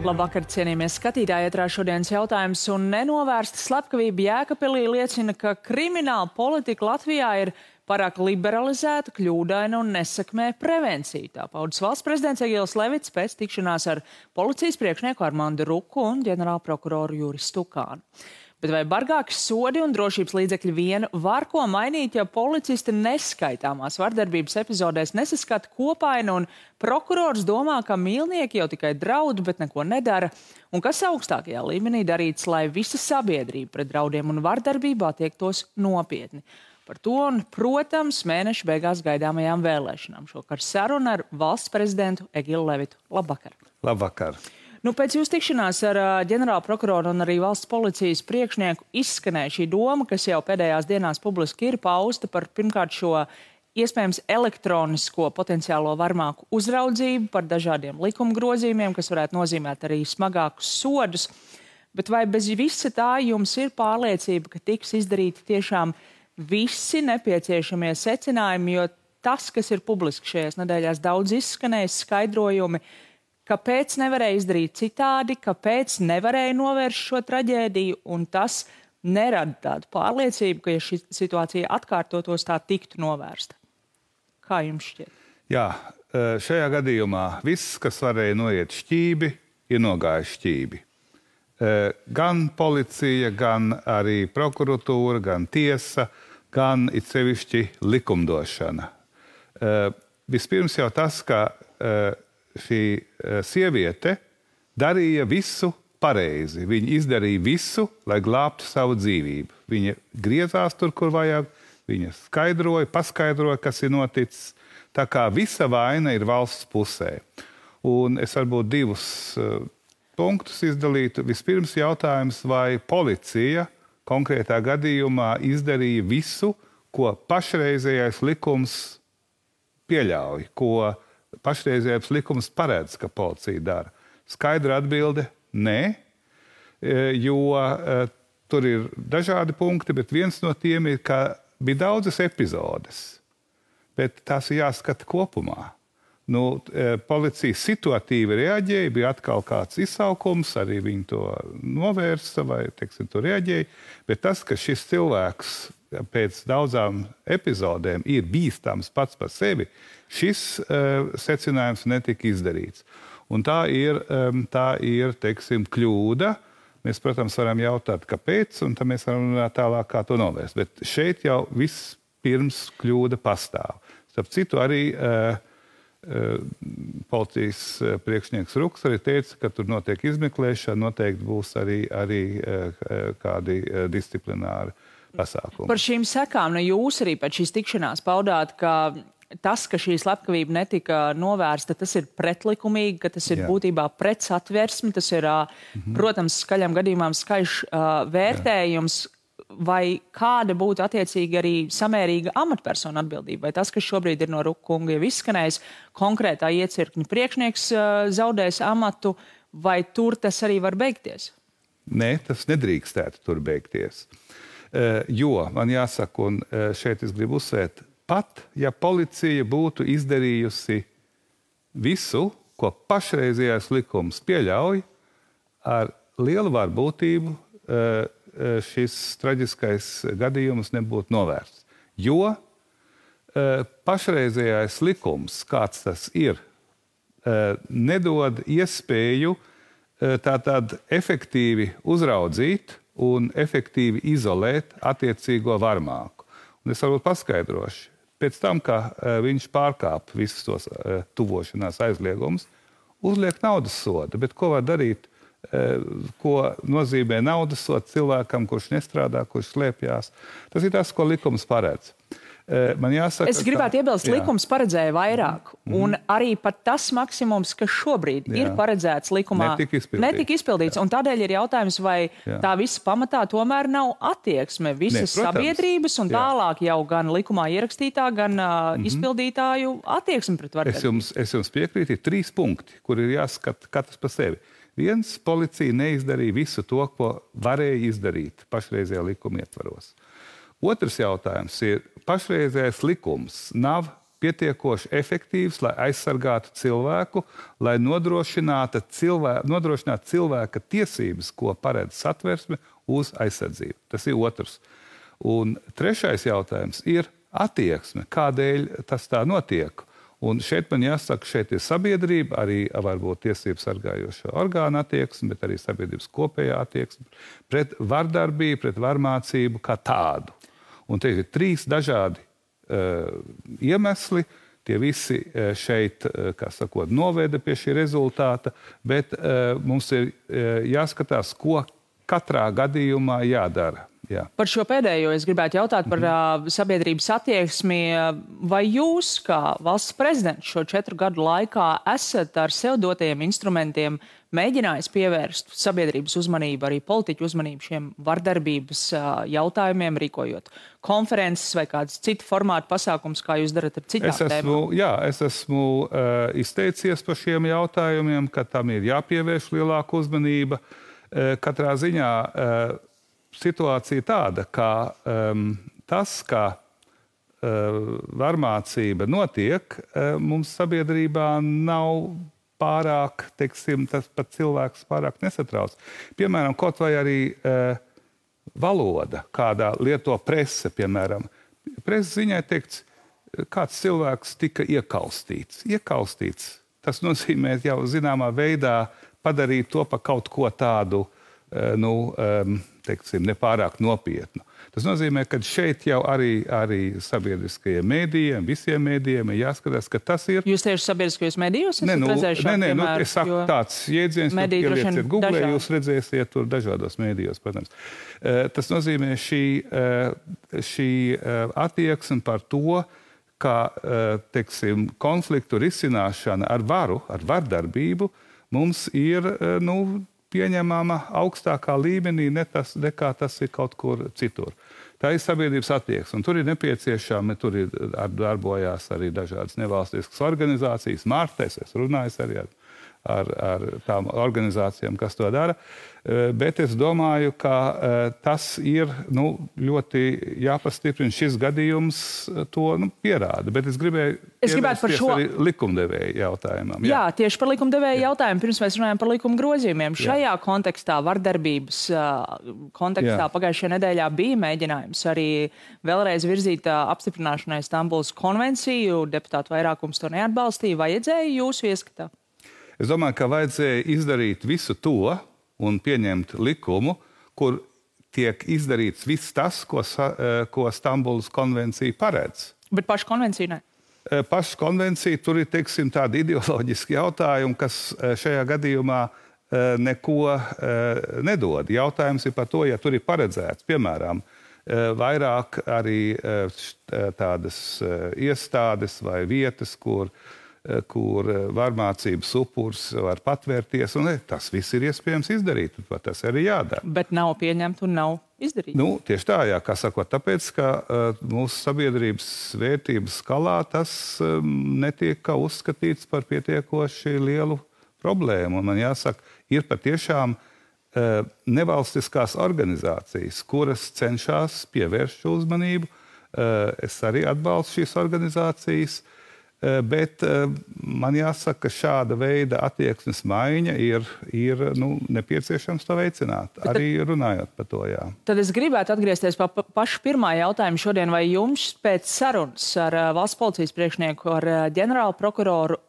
Labvakar, cienījamies skatītāji, ietrā šodienas jautājums un nenovērsta slepkavība Jēkabpilī liecina, ka krimināla politika Latvijā ir pārāk liberalizēta, kļūdaina un nesekmē prevenciju. Tā paudas valsts prezidents Egils Levits pēc tikšanās ar policijas priekšnieku Armandu Ruku un ģenerālprokuroru Juris Stukānu. Bet vai bargāki sodi un drošības līdzekļi vien var ko mainīt, ja policisti neskaitāmās vardarbības epizodēs nesaskata kopainu un prokurors domā, ka mīlnieki jau tikai draud, bet neko nedara? Un kas augstākajā līmenī darīts, lai visa sabiedrība pret draudiem un vardarbību attiektos nopietni? Par to un, protams, mēneša beigās gaidāmajām vēlēšanām. Šokar saruna ar valsts prezidentu Egilu Levitu. Labvakar! Labvakar! Pēc jūsu tikšanās ar ģenerālprokuroru un arī valsts policijas priekšnieku izskanēja šī doma, kas jau pēdējās dienās publiski ir pausta par pirmkārt šo iespējams elektronisko potenciālo varmāku uzraudzību, par dažādiem likuma grozījumiem, kas varētu nozīmēt arī smagākus sodus. Bet vai bez visa tā jums ir pārliecība, ka tiks izdarīti tiešām visi nepieciešamie secinājumi, jo tas, kas ir publiski šajās nedēļās daudz izskanējis skaidrojumi, kāpēc nevarēja izdarīt citādi, kāpēc nevarēja novērst šo traģēdiju, un tas nerada tādu pārliecību, ka, ja šī situācija atkārtotos, tā tiktu novērsta. Kā jums šķiet? Jā, šajā gadījumā viss, kas varēja noiet šķībi, ir nogājis šķībi. Gan policija, gan arī prokuratūra, gan tiesa, gan it sevišķi likumdošana. Vispirms jau tas, ka šī sieviete darīja visu pareizi. Viņa izdarīja visu, lai glābtu savu dzīvību. Viņa griezās tur, kur vajag, viņa paskaidroja, kas ir noticis. Tā kā visa vaina ir valsts pusē. Un es varbūt divus punktus izdalītu. Vispirms jautājums, vai policija konkrētā gadījumā izdarīja visu, ko pašreizējais likums pieļauj, ko pašreizējais likums paredz, ka policija dara. Skaidra atbilde – nē, jo tur ir dažādi punkti, bet viens no tiem ir, ka bija daudzas epizodes, bet tās ir jāskata kopumā. Policija situatīvi reaģēja, bija atkal kāds izsaukums, arī viņi to novērsa vai, to reaģēja, bet tas, ka šis cilvēks pēc daudzām epizodēm ir bīstams pats par sevi, šis secinājums netika izdarīts. Un tā ir kļūda. Mēs, protams, varam jautāt, kāpēc, un tad mēs varam runāt tālāk, kā to novērst. Bet šeit jau viss pirms kļūda pastāv. Starp citu, arī policijas priekšnieks Ruks arī teica, ka tur notiek izmeklēšana, noteikti būs arī kādi disciplināri pasākumi. Par šīm sekām, jūs arī pēc šīs tikšanās paudāt, ka tas, ka šī slepkavība netika novērsta, tas ir pretlikumīgi, ka tas ir būtībā pret satversmi, tas ir, protams, skaļam gadījumam skaļš vērtējums, vai kāda būtu attiecīgi arī samērīga amatpersona atbildība, vai tas, kas šobrīd ir no Ruka kunga jau izskanējis, konkrētā iecirkņa priekšnieks zaudēs amatu, vai tur tas arī var beigties? Nē, tas nedrīkstētu tur beigties. Jo, man jāsaka, un šeit es gribu uzsvērt, pat ja policija būtu izdarījusi visu, ko pašreizējais likums pieļauj, ar lielu varbūtību šis traģiskais gadījums nebūtu novērsts. Jo pašreizējais likums, kāds tas ir, nedod iespēju tātad efektīvi uzraudzīt un efektīvi izolēt attiecīgo varmāku. Un es varbūt paskaidrošu. Pēc tam, ka viņš pārkāp visus tos tuvošanās aizliegumus, uzliek naudas sodu. Bet ko var darīt? Ko nozīmē naudas sods cilvēkam, kurš nestrādā, kurš slēpjās? Tas ir tas, ko likums paredz. Man jāsaka, es gribētu iebilst, likums paredzēja vairāk. Un arī pat tas maksimums, kas šobrīd ir paredzēts likumā, netika izpildīts. Un tādēļ ir jautājums, vai tā visa pamatā tomēr nav attieksme visas sabiedrības un tālāk jau gan likumā ierakstītā, gan izpildītāju attieksme pret vardarbību. Es jums piekrītu, ir 3 punkti, kur ir jāskata katrs par sevi. Viens, policija neizdarīja visu to, ko varēja izdarīt pašreizējā likuma ietvaros. Otrs jautājums ir, pašreizējais likums nav pietiekoši efektīvs, lai aizsargātu cilvēku, lai nodrošinātu cilvēka tiesības, ko paredz Satversme, uz aizsardzību. Tas ir otrs. Un trešais jautājums ir attieksme, kādēļ tas tā notiek. Un šeit man jāsaka, šeit ir sabiedrība, arī varbūt tiesību sargājošo orgānu attieksme, bet arī sabiedrības kopējā attieksme pret vardarbību, pret varmācību kā tādu. Un te ir 3 dažādi iemesli, tie visi šeit, kā sakot, noveda pie šī rezultāta, bet mums ir jāskatās, ko katrā gadījumā jādara. Jā. Par šo pēdējo es gribētu jautāt par sabiedrības attieksmi. Vai jūs, kā valsts prezidents, šo 4 gadu laikā esat ar sev dotajiem instrumentiem mēģinājis pievērst sabiedrības uzmanību, arī politiķu uzmanību šiem vardarbības jautājumiem, rīkojot konferences vai kādas citu formātu pasākums, kā jūs darat ar citām tēmām? Es esmu izteicies par šiem jautājumiem, ka tam ir jāpievērš lielāka uzmanība. Katrā ziņā situācija tāda, ka tas, ka varmācība notiek, mums sabiedrībā nav pārāk, teiksim, tas pat cilvēks pārāk nesatrauc. Piemēram, kaut vai arī valoda, kādā lieto prese, piemēram. Preses ziņai teikts, kāds cilvēks tika iekaustīts. Tas nozīmē jau zināmā veidā padarīt to par kaut ko tādu, teiksim, nepārāk nopietnu. Tas nozīmē, ka šeit jau arī sabiedriskajiem mēdījiem, visiem mēdījiem ir jāskatās, ka tas ir... Jūs tieši sabiedriskajos mēdījos esat redzējuši? Nē, es saku tāds jēdziens, ka ielieciet Google, jūs redzēsiet tur dažādos mēdījos, protams. Tas nozīmē šī attieksme par to, ka, teiksim, konfliktu risināšana ar varu, ar vardarbību, mums ir, pieņemama augstākā līmenī, nekā tas ir kaut kur citur. Tā ir sabiedrības attieksme, un tur ir nepieciešami, tur ir darbojās arī dažādas nevalstiskas organizācijas, Mārtes, es runāju arī ar tām organizācijām, kas to dara, bet es domāju, ka tas ir ļoti jāpastiprina. Šis gadījums to pierāda, bet es gribētu par šo arī likumdevēju jautājumam. Jā, tieši par likumdevēju jautājumu, pirms mēs runājam par likuma grozījumiem. Šajā kontekstā, vardarbības kontekstā, pagājušajā nedēļā bija mēģinājums arī vēlreiz virzīt apstiprināšanai Stambulas konvenciju, deputātu vairākums to neatbalstīja. Vajadzēja jūsu ieskatā? Es domāju, ka vajadzēja izdarīt visu to un pieņemt likumu, kur tiek izdarīts viss tas, ko Stambulas konvencija paredz. Bet pašu konvenciju ne? Pašu konvenciju tur ir, teiksim, tādi ideoloģiski jautājumi, kas šajā gadījumā neko nedod. Jautājums ir par to, ja tur ir paredzēts, piemēram, vairāk arī tādas iestādes vai vietas, kur varmācības upurs var patvērties, un tas viss ir iespējams izdarīt, un tas arī jādara. Bet nav pieņemt un nav izdarīt. Tieši tā, jā, kā sakot, tāpēc, ka mūsu sabiedrības vērtības skalā tas netiek uzskatīts par pietiekoši lielu problēmu. Un man jāsaka, ir patiešām nevalstiskās organizācijas, kuras cenšas pievērst šo uzmanību. Es arī atbalstu šīs organizācijas, bet man jāsaka, ka šāda veida attieksmes maiņa ir nepieciešams to veicināt, arī runājot par to, jā. Tad es gribētu atgriezties pie paša pirmā jautājuma šodien. Vai jums pēc sarunas ar valsts policijas priekšnieku, ar ģenerālu prokuroru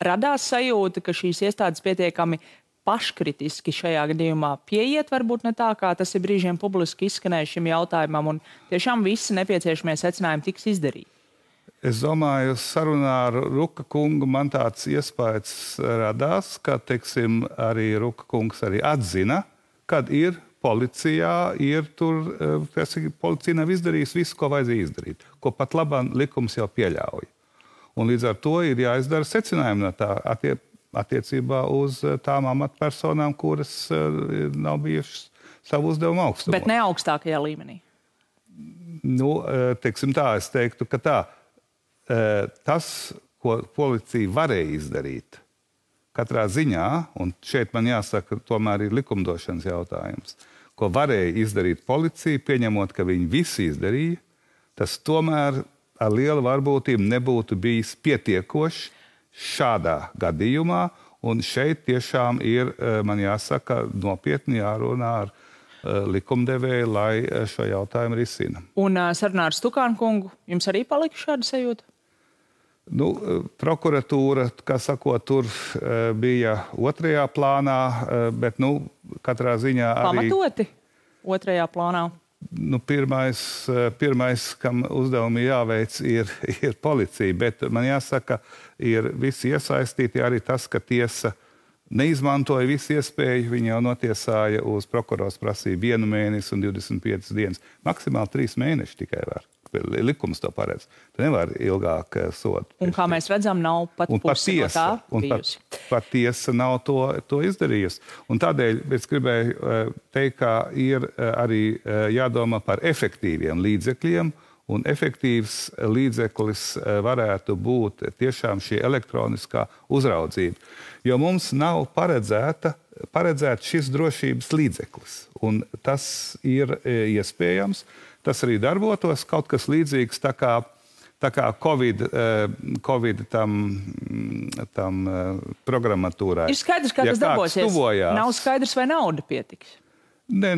radās sajūta, ka šīs iestādes pietiekami paškritiski šajā gadījumā pieiet, varbūt ne tā, kā tas ir brīžiem publiski izskanējuši šim jautājumam, un tiešām visi nepieciešamie secinājumi tiks izdarīti? Es domāju, sarunā ar Ruka kungu man tāds iespējas radās, ka, teiksim, arī Ruka kungs arī atzina, kad ir policijā, policija nav izdarījusi visu, ko vajadzēja izdarīt, ko pat labāk likums jau pieļauj. Un līdz ar to ir jāizdara secinājumi no tā attiecībā uz tām amatpersonām, kuras nav bijušas savu uzdevumu augstumā. Bet ne augstākajā līmenī? Teiksim tā, es teiktu, ka tā. Tas, ko policija varēja izdarīt, katrā ziņā, un šeit man jāsaka, tomēr ir likumdošanas jautājums, ko varēja izdarīt policija, pieņemot, ka viņi visi izdarīja, tas tomēr ar lielu varbūtību nebūtu bijis pietiekošs šādā gadījumā, un šeit tiešām ir, man jāsaka, nopietni jārunā ar likumdevēju, lai šo jautājumu risina. Un sarunā ar Stukānu kungu jums arī palika šāda sajūta? Nu, prokuratūra, kā sakot, tur bija otrajā plānā, bet, katrā ziņā arī... Pamatoti otrajā plānā? Pirmais, kam uzdevumi jāveic, ir policija, bet man jāsaka, ir visi iesaistīti arī tas, ka tiesa neizmantoja visu iespēju, viņi jau notiesāja uz prokurors prasību 1 mēnesi un 25 dienas. Maksimāli 3 mēneši tikai var. Likums to paredz. Tu nevar ilgāk sodu. Un kā mēs redzam, nav pat pusi no tā bijusi. Pat tiesa nav to izdarījusi. Un tādēļ es gribēju teikt, ka ir arī jādomā par efektīviem līdzekļiem, un efektīvs līdzeklis varētu būt tiešām šī elektroniskā uzraudzība. Jo mums nav paredzēts šis drošības līdzeklis. Un tas ir iespējams. Tas arī darbotos kaut kas līdzīgs tā kā Covid tam programmatūrai. Ir skaidrs, kā tas darbosies. Nav skaidrs, vai nauda pietiks. Nē,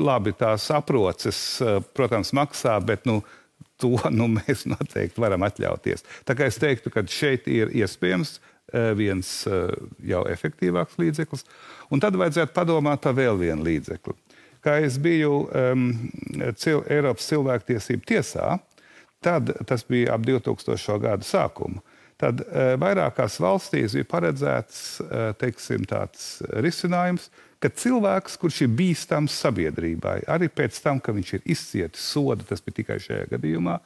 labi, tās aproces, protams, maksā, bet to mēs noteikti varam atļauties. Tā kā es teiktu, ka šeit ir iespējams viens jau efektīvāks līdzeklis, un tad vajadzētu padomāt par vēl vienu līdzekli. Kā es biju Eiropas cilvēktiesību tiesā, tad tas bija ap 2000. Gadu sākumu. Tad vairākās valstīs bija paredzēts, teiksim, tāds risinājums, ka cilvēks, kurš ir bīstams sabiedrībai, arī pēc tam, ka viņš ir izcietis sodu, tas bija tikai šajā gadījumā,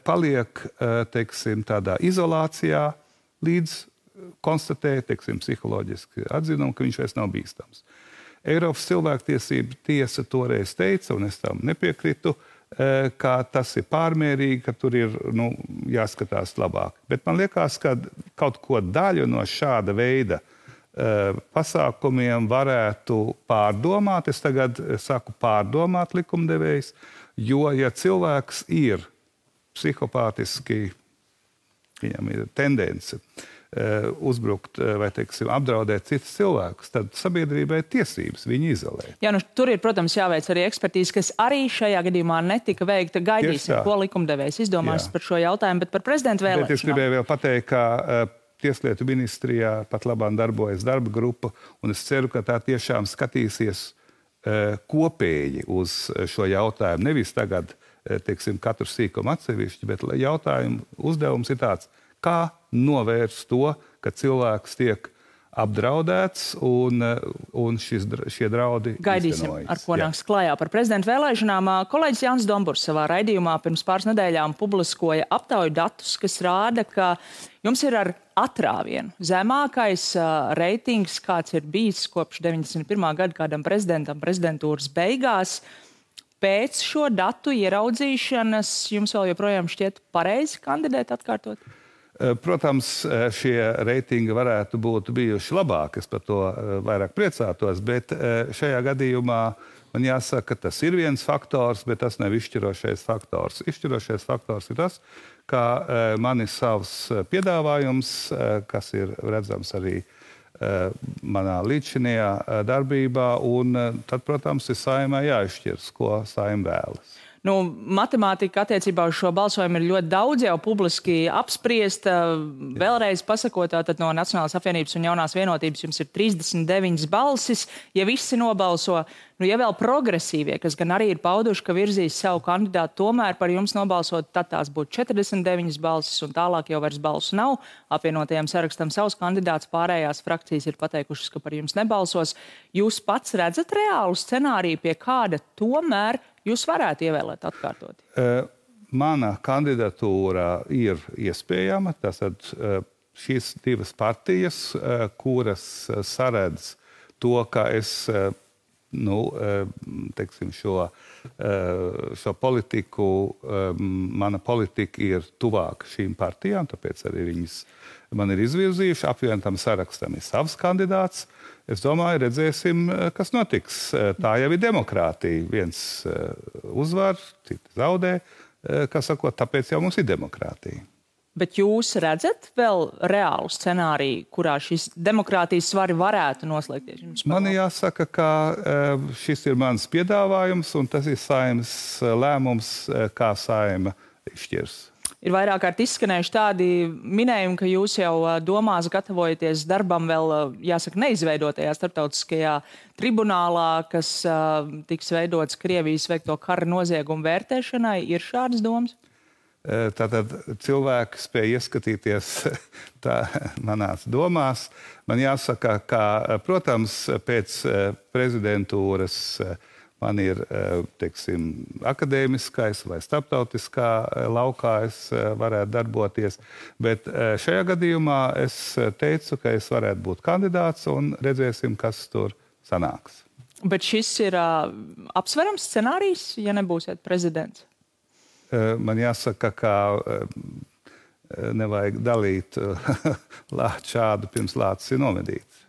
paliek, teiksim, tādā izolācijā, līdz konstatē, teiksim, psiholoģiski atzinumu, ka viņš vairs nav bīstams. Eiropas cilvēktiesība tiesa toreiz teica, un es tam nepiekritu, ka tas ir pārmērīgi, ka tur ir jāskatās labāk. Bet man liekas, ka kaut ko daļu no šāda veida pasākumiem varētu pārdomāt. Es tagad saku pārdomāt likumdevējs, jo ja cilvēks ir psihopātiski, viņam ir tendence uzbrukt vai, teiksim, apdraudēt citus cilvēkus, tad sabiedrībai tiesības viņu izolēt. Jā, tur ir, protams, jāveic arī ekspertīze, kas arī šajā gadījumā netika veikta. Gaidīsim, ko likumdevējs izdomās par šo jautājumu, bet par prezidentu vēlēšanām. Bet es gribēju vēl pateikt, ka Tieslietu ministrijā pat labāk darbojas darba grupa, un es ceru, ka tā tiešām skatīsies kopēji uz šo jautājumu. Nevis tagad, teiksim, katru sīkumu atsevišķi, bet jautājumu uzdevums ir tāds, kā novērst to, ka cilvēks tiek apdraudēts un šie draudi Gaidīsim, iztenojas. ar ko nāks klājā par prezidentu vēlēšanām. Kolēģis Jānis Domburs savā raidījumā pirms pāris nedēļām publiskoja aptauju datus, kas rāda, ka jums ir ar atrāvienu zemākais reitings, kāds ir bijis kopš 91. gada kādam prezidentam prezidentūras beigās. Pēc šo datu ieraudzīšanas jums vēl joprojām šķiet pareizi kandidēt atkārtot? Protams, šie reitingi varētu būt bijuši labāki, es par to vairāk priecātos, bet šajā gadījumā man jāsaka, ka tas ir viens faktors, bet tas nav izšķirošais faktors. Izšķirošais faktors ir tas, ka man ir savs piedāvājums, kas ir redzams arī manā līdzinājā darbībā, un tad, protams, ir Saeimai jāizšķirs, ko Saeima vēlas. Matemātika attiecībā uz šo balsojumu ir ļoti daudz jau publiski apspriesta. Vēlreiz pasakot, tātad no Nacionālās apvienības un Jaunās vienotības jums ir 39 balsis. Ja visi nobalso, ja vēl progresīvie, kas gan arī ir pauduši, ka virzīs savu kandidātu, tomēr par jums nobalsot, tad tās būtu 49 balsis un tālāk jau vairs balsu nav. Apvienotajam sarakstam savs kandidāts, pārējās frakcijas ir pateikušas, ka par jums nebalsos. Jūs pats redzat reālu scenāriju, pie kāda tomēr jūs varētu ievēlēt atkārtot? Mana kandidatūra ir iespējama. Tātad šīs divas partijas, kuras saredz to, ka es teiksim, šo politiku, mana politika ir tuvāka šīm partijām, tāpēc arī viņas man ir izvirzījuši. Apvienotam sarakstam ir savs kandidāts. Es domāju, redzēsim, kas notiks. Tā jau ir demokrātija. Viens uzvar, citi zaudē. kā sakot, tāpēc jau mums ir demokrātija. Bet jūs redzat vēl reālu scenāriju, kurā šis demokrātijas svari varētu noslēgties? Man jāsaka, ka šis ir mans piedāvājums, un tas ir Saeimas lēmums, kā Saeima izšķirs. Ir vairāk kārt izskanējuši tādi minējumi, ka jūs jau domās gatavojaties darbam vēl, jāsaka, neizveidotajā starptautiskajā tribunālā, kas tiks veidots Krievijas veikto kara noziegumu vērtēšanai. Ir šādas domas? Tātad cilvēki spēja ieskatīties manās domās. Man jāsaka, ka, protams, pēc prezidentūras man ir, teiksim, akadēmiskais vai starptautiskā laukā es varētu darboties, bet šajā gadījumā es teicu, ka es varētu būt kandidāts un redzēsim, kas tur sanāks. Bet šis ir apsverams scenārijs, ja nebūsiet prezidents? Man jāsaka, ka nevajag dalīt lāču šādu pirms lācis ir nomedīts.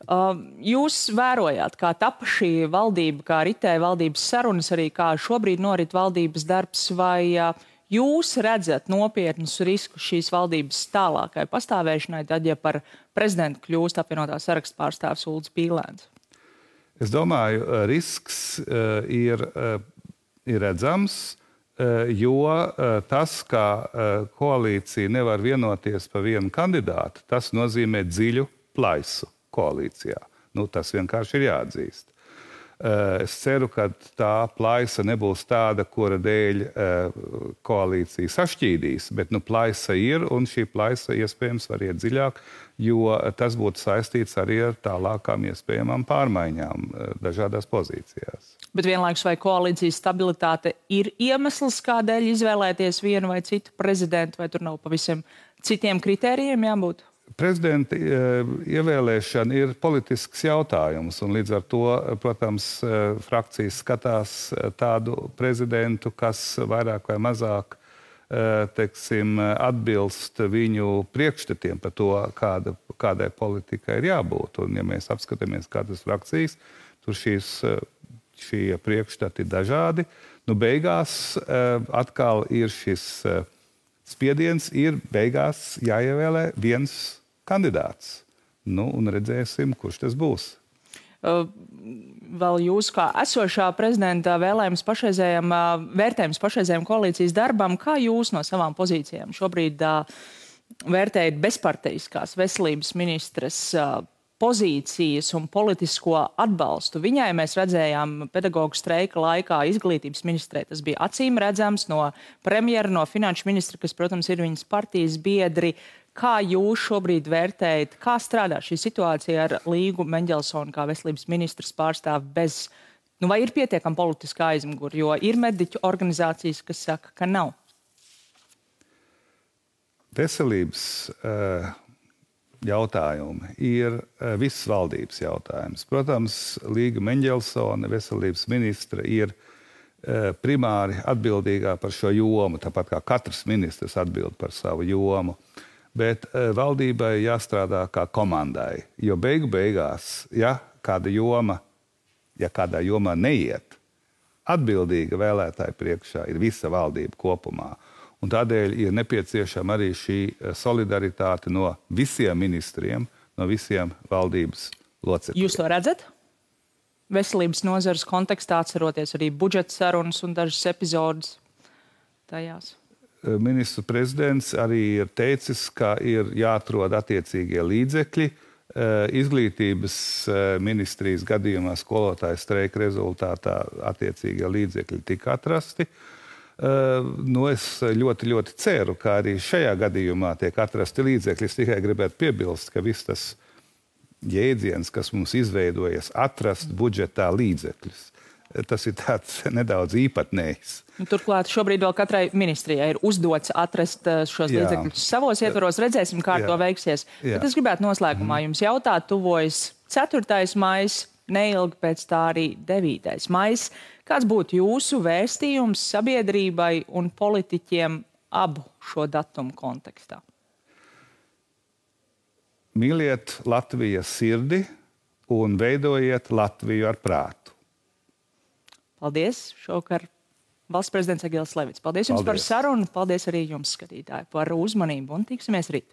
Jūs vērojāt, kā tapa šī valdība, kā ritēja valdības sarunas, arī kā šobrīd norit valdības darbs, vai jūs redzat nopietnus riskus šīs valdības tālākai pastāvēšanai, tad, ja par prezidentu kļūst apvienotā saraksta pārstāvs Ulris Pīlēns? Es domāju, risks ir redzams, jo tas, ka koalīcija nevar vienoties par vienu kandidātu, tas nozīmē dziļu plaisu koalīcijā. Tas vienkārši ir jāatzīst. Es ceru, ka tā plaisa nebūs tāda, kura dēļ koalīcija sašķīdīs, bet plaisa ir, un šī plaisa iespējams var iet dziļāk, jo tas būtu saistīts arī ar tālākām iespējamām pārmaiņām dažādās pozīcijās. Bet vienlaikus vai koalīcijas stabilitāte ir iemesls, kādēļ izvēlēties vienu vai citu prezidentu, vai tur nav pavisam citiem kritērijiem jābūt? Prezidenta ievēlēšana ir politisks jautājums, un līdz ar to, protams, frakcijas skatās tādu prezidentu, kas vairāk vai mazāk, teiksim, atbilst viņu priekšstatiem par to, kādai politikai ir jābūt. Un, ja mēs apskatāmies kādas frakcijas, tur šie priekšstati ir dažādi. Beigās atkal ir šis spiediens, ir beigās jāievēlē viens kandidāts. Un redzēsim, kurš tas būs. Vēl jūs kā esošā prezidenta vērtējums pašreizējam koalīcijas darbam, kā jūs no savām pozīcijām šobrīd vērtējat bezparteiskās veselības ministres pozīcijas un politisko atbalstu? Viņai mēs redzējām pedagoģu streika laikā izglītības ministrē. Tas bija acīm redzams no premjera, no finanšu ministra, kas, protams, ir viņas partijas biedri. Kā jūs šobrīd vērtējat, kā strādā šī situācija ar Līgu Meņģelsonu kā veselības ministras pārstāvi bez, vai ir pietiekama politiskā aizmugure, jo ir mediķu organizācijas, kas saka, ka nav? Veselības jautājumi ir visas valdības jautājums. Protams, Līga Meņģelsone, veselības ministra, ir primāri atbildīgā par šo jomu, tāpat kā katrs ministrs atbild par savu jomu. Bet valdībai jāstrādā kā komandai, jo beigās, ja kādā jomā neiet, atbildīga vēlētāja priekšā ir visa valdība kopumā. Un tādēļ ir nepieciešama arī šī solidaritāte no visiem ministriem, no visiem valdības locekļiem. Jūs to redzat? Veselības nozares kontekstā, atceroties arī budžeta sarunas un dažas epizodes tajās. Ministru prezidents arī ir teicis, ka ir jāatrod attiecīgie līdzekļi. Izglītības ministrijas gadījumā skolotāju streika rezultātā attiecīgie līdzekļi tika atrasti. Es ļoti, ļoti ceru, ka arī šajā gadījumā tiek atrasti līdzekļi. Es tikai gribētu piebilst, ka viss tas jēdziens, kas mums izveidojas, atrast budžetā līdzekļus. Tas ir tāds nedaudz īpatnējs. Turklāt šobrīd vēl katrai ministrijai ir uzdots atrast šos līdzekļus savos ietvaros. Redzēsim, kā to veiksies. Bet es gribētu noslēgumā jums jautāt, tuvojas 4. maijs, neilgi pēc tā arī 9. maijs. Kāds būtu jūsu vēstījums sabiedrībai un politiķiem abu šo datumu kontekstā? Mīliet Latvijas sirdi un veidojiet Latviju ar prātu. Paldies! Šovakar valsts prezidents Egils Levits. Paldies jums par sarunu, paldies arī jums, skatītāji, par uzmanību un tiksimies rīt.